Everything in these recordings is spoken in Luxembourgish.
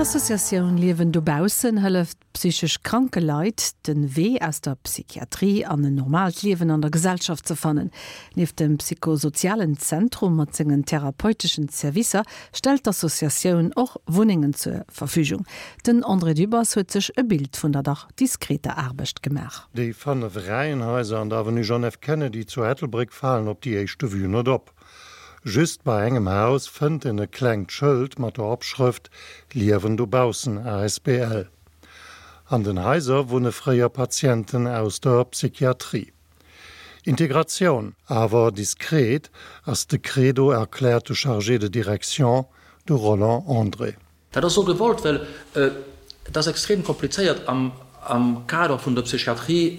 D'Associatioun Liewen dobaussen hëlleft psychesch kranke Leit, de Wee aus der Psychiatrie an en normaalt Liewen an der Gesellschaft ze fannen. Nieft dem psychosozialen Zentrum mat sengen therapeuteschen Servicer stellt d'Associatioun och Wunnengen zur Verfügung. Den André Dübbers huet sech e Bild vun der dach diskreter Aarbecht gemaach. Déi 5 Reihenhaiser an der Avenue John F. Kennedy zu Ettelbréck falen op déi éischte Vue net op. Just bei engem Haus fënnt en e klengt Schëld mat der Opschrëft Liewen dobaussen asbl. An den Haiser wunne fréier Patienten aus der Psychiatrie. Integratioun, awer diskret, ass de Credo, erkläert de Chargé de direction, de Roland André. Dat ass esou gewollt, well et ass extrem komplizéiert am Kader vun der Psychiatrie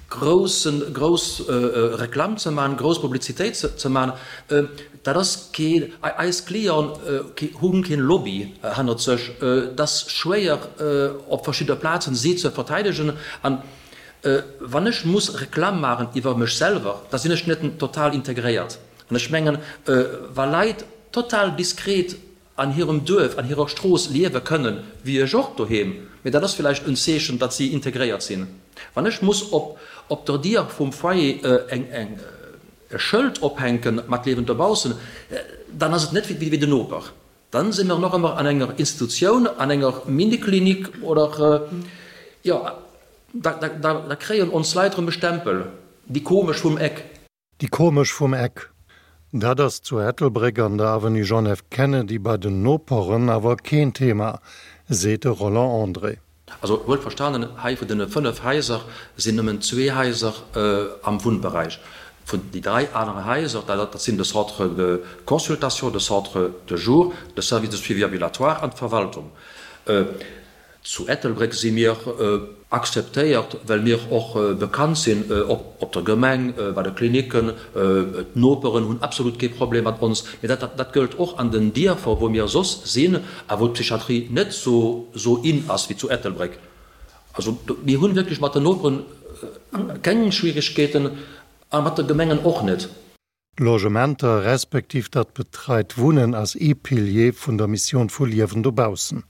groussen, grouss Reklamm ze maachen, grouss Publizitéit ze maachen. Dat ass kee, eis Clienten hu keen Lobby hannert sech. Et ass schwéier op verschidde Plazen si ze verteidegen. An wann ech muss Reklamm maachen iwwer mech selwer, da sinn ech net total integréiert. An ech mengen, wa Leit total diskret an hirem Duerf, an hirer Strooss liewe kënnen, wéi ech och doheem, mee dat ass villäicht en Zeechen, datt si integréiert sinn. Wann ech muss op op der Dier vum Foyer eng eng e Schëld ophänke mat Liewen dobaussen, dann ass et net wéi den Noper. Dann si mer nach ëmmer an enger Institutioun, an enger Miniklinik oder, jo, da da da kréien ons Leit erëm e Stempel, déi komesch vum Eck. Déi komesch vum Eck. Dat ass zu Ettelbréck an der Avenue John F. Kennedy bei den Noperen awer keen Thema, seet de Roland André. Also wuel verstanen, hei vun deene 5 Haiser sinn nëmmen zwee Haiser am Wunnberäich. Vun déi 3 anere Haiser, dat sinn de Centre de consultation, de Centre de jour, de Service de suivi ambulatoire an d'Verwaltung. Zu Ettelbréck si mir akzeptéiert, well mir och bekannt sinn op der Gemeng, bei de Klinicken. D'Noperen hunn absolut kee Problem mat ons. Mee dat gëllt och an den Dierfer, wou mir soss sinn a wou d'Psychiatrie net esou in ass wéi zu Ettelbréck. Also mir hunn wierklech mat den Noperen keng Schwierigkeeten a mat de Gemengen och net. D'Logementer, respektiv dat betreit Wunnen ass ee Pilier vun der Missioun vu Liewen dobaussen.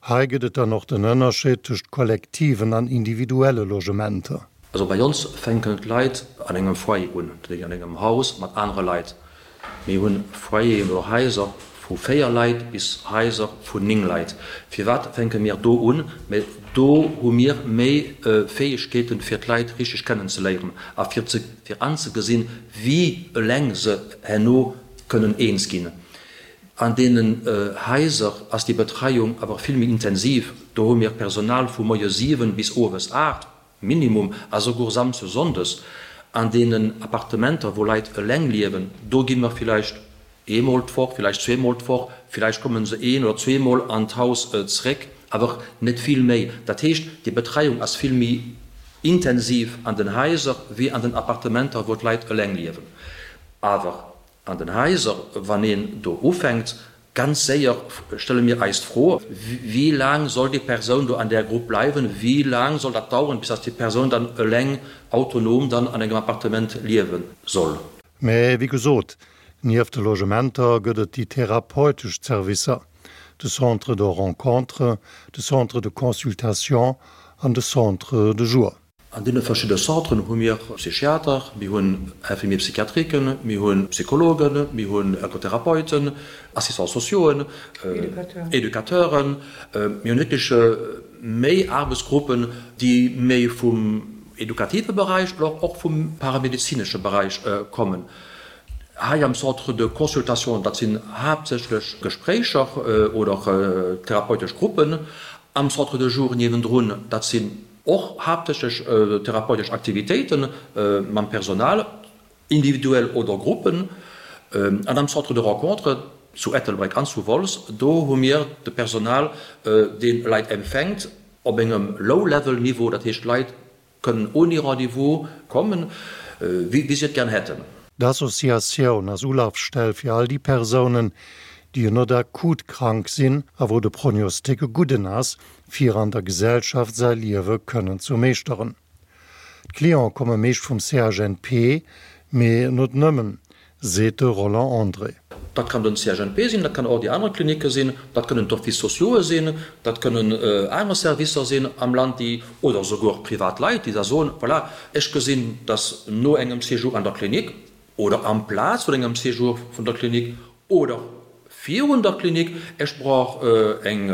Hei gëtt et dann och den Ënnerscheed tëscht kollektiven an individuelle Logementer. Also bei ons fänken d'Leit an engem Foyer un, dat heescht an engem Haus mat anere Leit. Mir hunn Foyeren oder Haiser vu 4 Leit bis Haiser vun 9 Leit. Firwat fänke mir do un? Mä do hu mir méi Fäegkeeten, fir d'Leit richteg kennenzeléieren a fir ze fir anzegesinn, wéi eleng se herno kënnen eens ginn. An deenen Haiser ass déi Betreiung awer vill méi intensiv. Do hu mir Personal vu moies 7 bis owes 8 Minimum, a souguer samsdes, sonndes. An deenen Appartementer, wou Leit eleng liewen, do gi mer villäicht eemol d'Woch, villäicht zweemol d'Woch, villäicht komme se een oder zweemol an d'Haus zréck, awer net vill méi. Dat heescht, déi Betreiung ass vill méi intensiv an den Haiser wéi an den Appartementer, wou d'Leit eleng liewen. Awer an den Haiser, wann een do ufänkt, ganz séier stelle mir eis d'Fro, Wéi laang soll déi Persoun do an där Grupp bleiwen? Wéi laang soll dat daueren, bis dass déi Persoun dann eleng autonom dann an engem Appartement liewe soll? Mä wéi gesot, nieft de Logementer gëtt et déi therapeutesch Zerwisser, de Centre de rencontre, de Centre de consultation an de Centre de jour. An deene verschidde Centren hu mir Psychiater, mir hunn Infirmiers psychiatriquen, mir hu Psychologen, mir hunn Ergotherapeuten, Assistants sociauxen, Educateuren. Mir hunn wierklech méi Aarbechtsgruppen, déi méi vum edukative Beräich oder och vum paramedezinesche Beräich kommen. Hei am Centre de consultation, dat sinn haaptsächlech Gespréicher oder therapeutesch Gruppen. Am Centre de jour niewendrun, dat sinn och haaptsächlech therapeutesch Aktivitéite mam Personal, individuell oder Gruppen. An am Centre de rencontre zu Ettelbréck an zu Wolz, do hu mir de Personal, dee Leit empfänkt op engem Low-level-Niveau, dat heescht Leit kënnen ouni Rendez-vous kommen, wéi si et gern hätten. D'Associatioun ass Ulafstell fir all déi Persounen, déi net akut krank sinn a wou de Prognostic e gudden ass, fir an der Gesellschaft säi Liewe kënnen ze meeschteren. D'Cliente komme meescht vum CHNP, mee net nëmmen, seet de Roland André. Dat kann den CHNP sinn, dat kann och déi aner Klinicke sinn, dat kënnen d'Offices sociaux'e sinn, dat kënnen aner Servicer sinn am Land, déi, oder souguer privat Leit, déi da soen, voilà, ech gesinn, dass no engem Séjour an der Klinik oder amplaz vun engem Séjour vun der Klinik oder virun der Klinik, ech brauch eng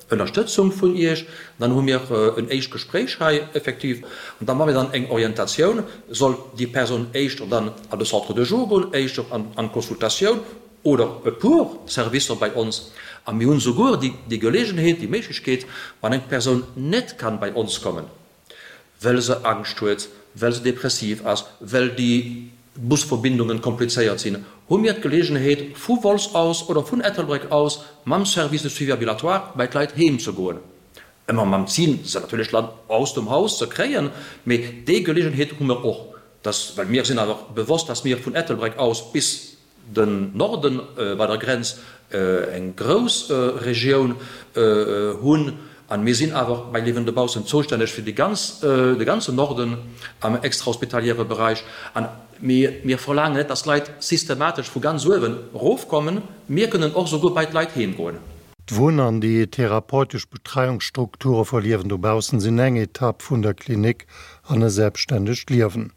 Ënnerstëtzung vun Iech. Dann hu mir en éischt Gespréich hei effektiv an da maache mir dann eng Orientatioun, soll déi Persoun éischter dann an de Centre de jour goen, éischter an d'Consultatioun oder e puer Servicer bei ons. A mir hunn souguer déi Geleegenheet, déi Méiglechkeet, wann eng Persoun net kann bei ons kommen, well se Angscht huet, well se depressiv ass, well déi Busverbindungen komplizéiert sinn, hu mir d'Geleegenheet, vu Wolz aus oder vun Ettelbréck aus mam Service de suivi ambulatoire bei d'Leit heem ze goen. Ëmmer mam Zil, se natierlech dann aus dem Haus ze kréien, mee déi Geleegenheet hu mer och, dass, well mir sinn awer bewosst, dass mir vun Ettelbréck aus bis den Norden bei der Grenz eng grouss Regioun hunn an mir sinn awer bei Liewen dobaussen zoustänneg fir déi ganz, de ganzen Norden am extrahospitaliere Bereich an mir, mir verlaangen net, dass d'Leit systematesch vu ganz uewen erofkommen, mir kënnen och souguer bei d'Leit heem goen. D'Wunn an déi therapeutesch Betreiungsstrukture vu Liewen dobaussen sinn eng Etapp vun der Klinik an e selbstständegt Liewen.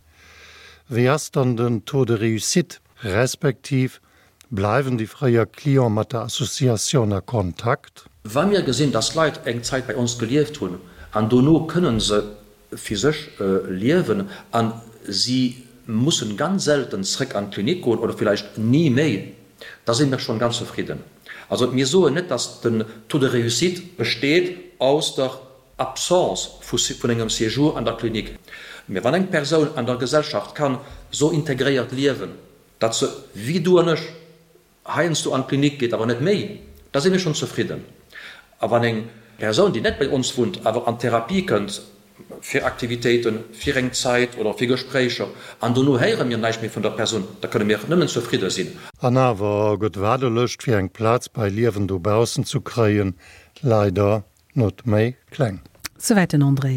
Wéi ass dann den Taux de réussite, respektiv bleiwen déi fréier Clienten mat der Associatioun a Kontakt? Wa mir gesinn, dass Leit eng Zäit bei ons gelieft hunn an dono kënnen se fir sech liewen a si mussen ganz selten zréck an d'Klinik goen oder villäicht ni méi, da si mir schonn ganz zefridden. Also mir soen net, dass den Taux de réussite besteet aus der Absence vun engem Séjour an der Klinik. Mä wann eng Persoun an der Gesellschaft kann sou integréiert liewen, datt se, wéi du an ech, heiansdo an d'Klinik geet, awer net méi, da si mir schonn zefridden. A wann eng Persoun, déi net bei ons wunnt, awer an d'Therapie kënnt, fir Aktivitéiten, fir eng Zäit oder fir Gespréicher, an dono héiere mir näischt méi vun der Persoun, da kënne mir nëmmen zefridde sinn. An awer gëtt d'Waardelëscht fir eng Plaz bei Liewen dobaussen ze kréien leider Not méi kleng. Souwäit den André.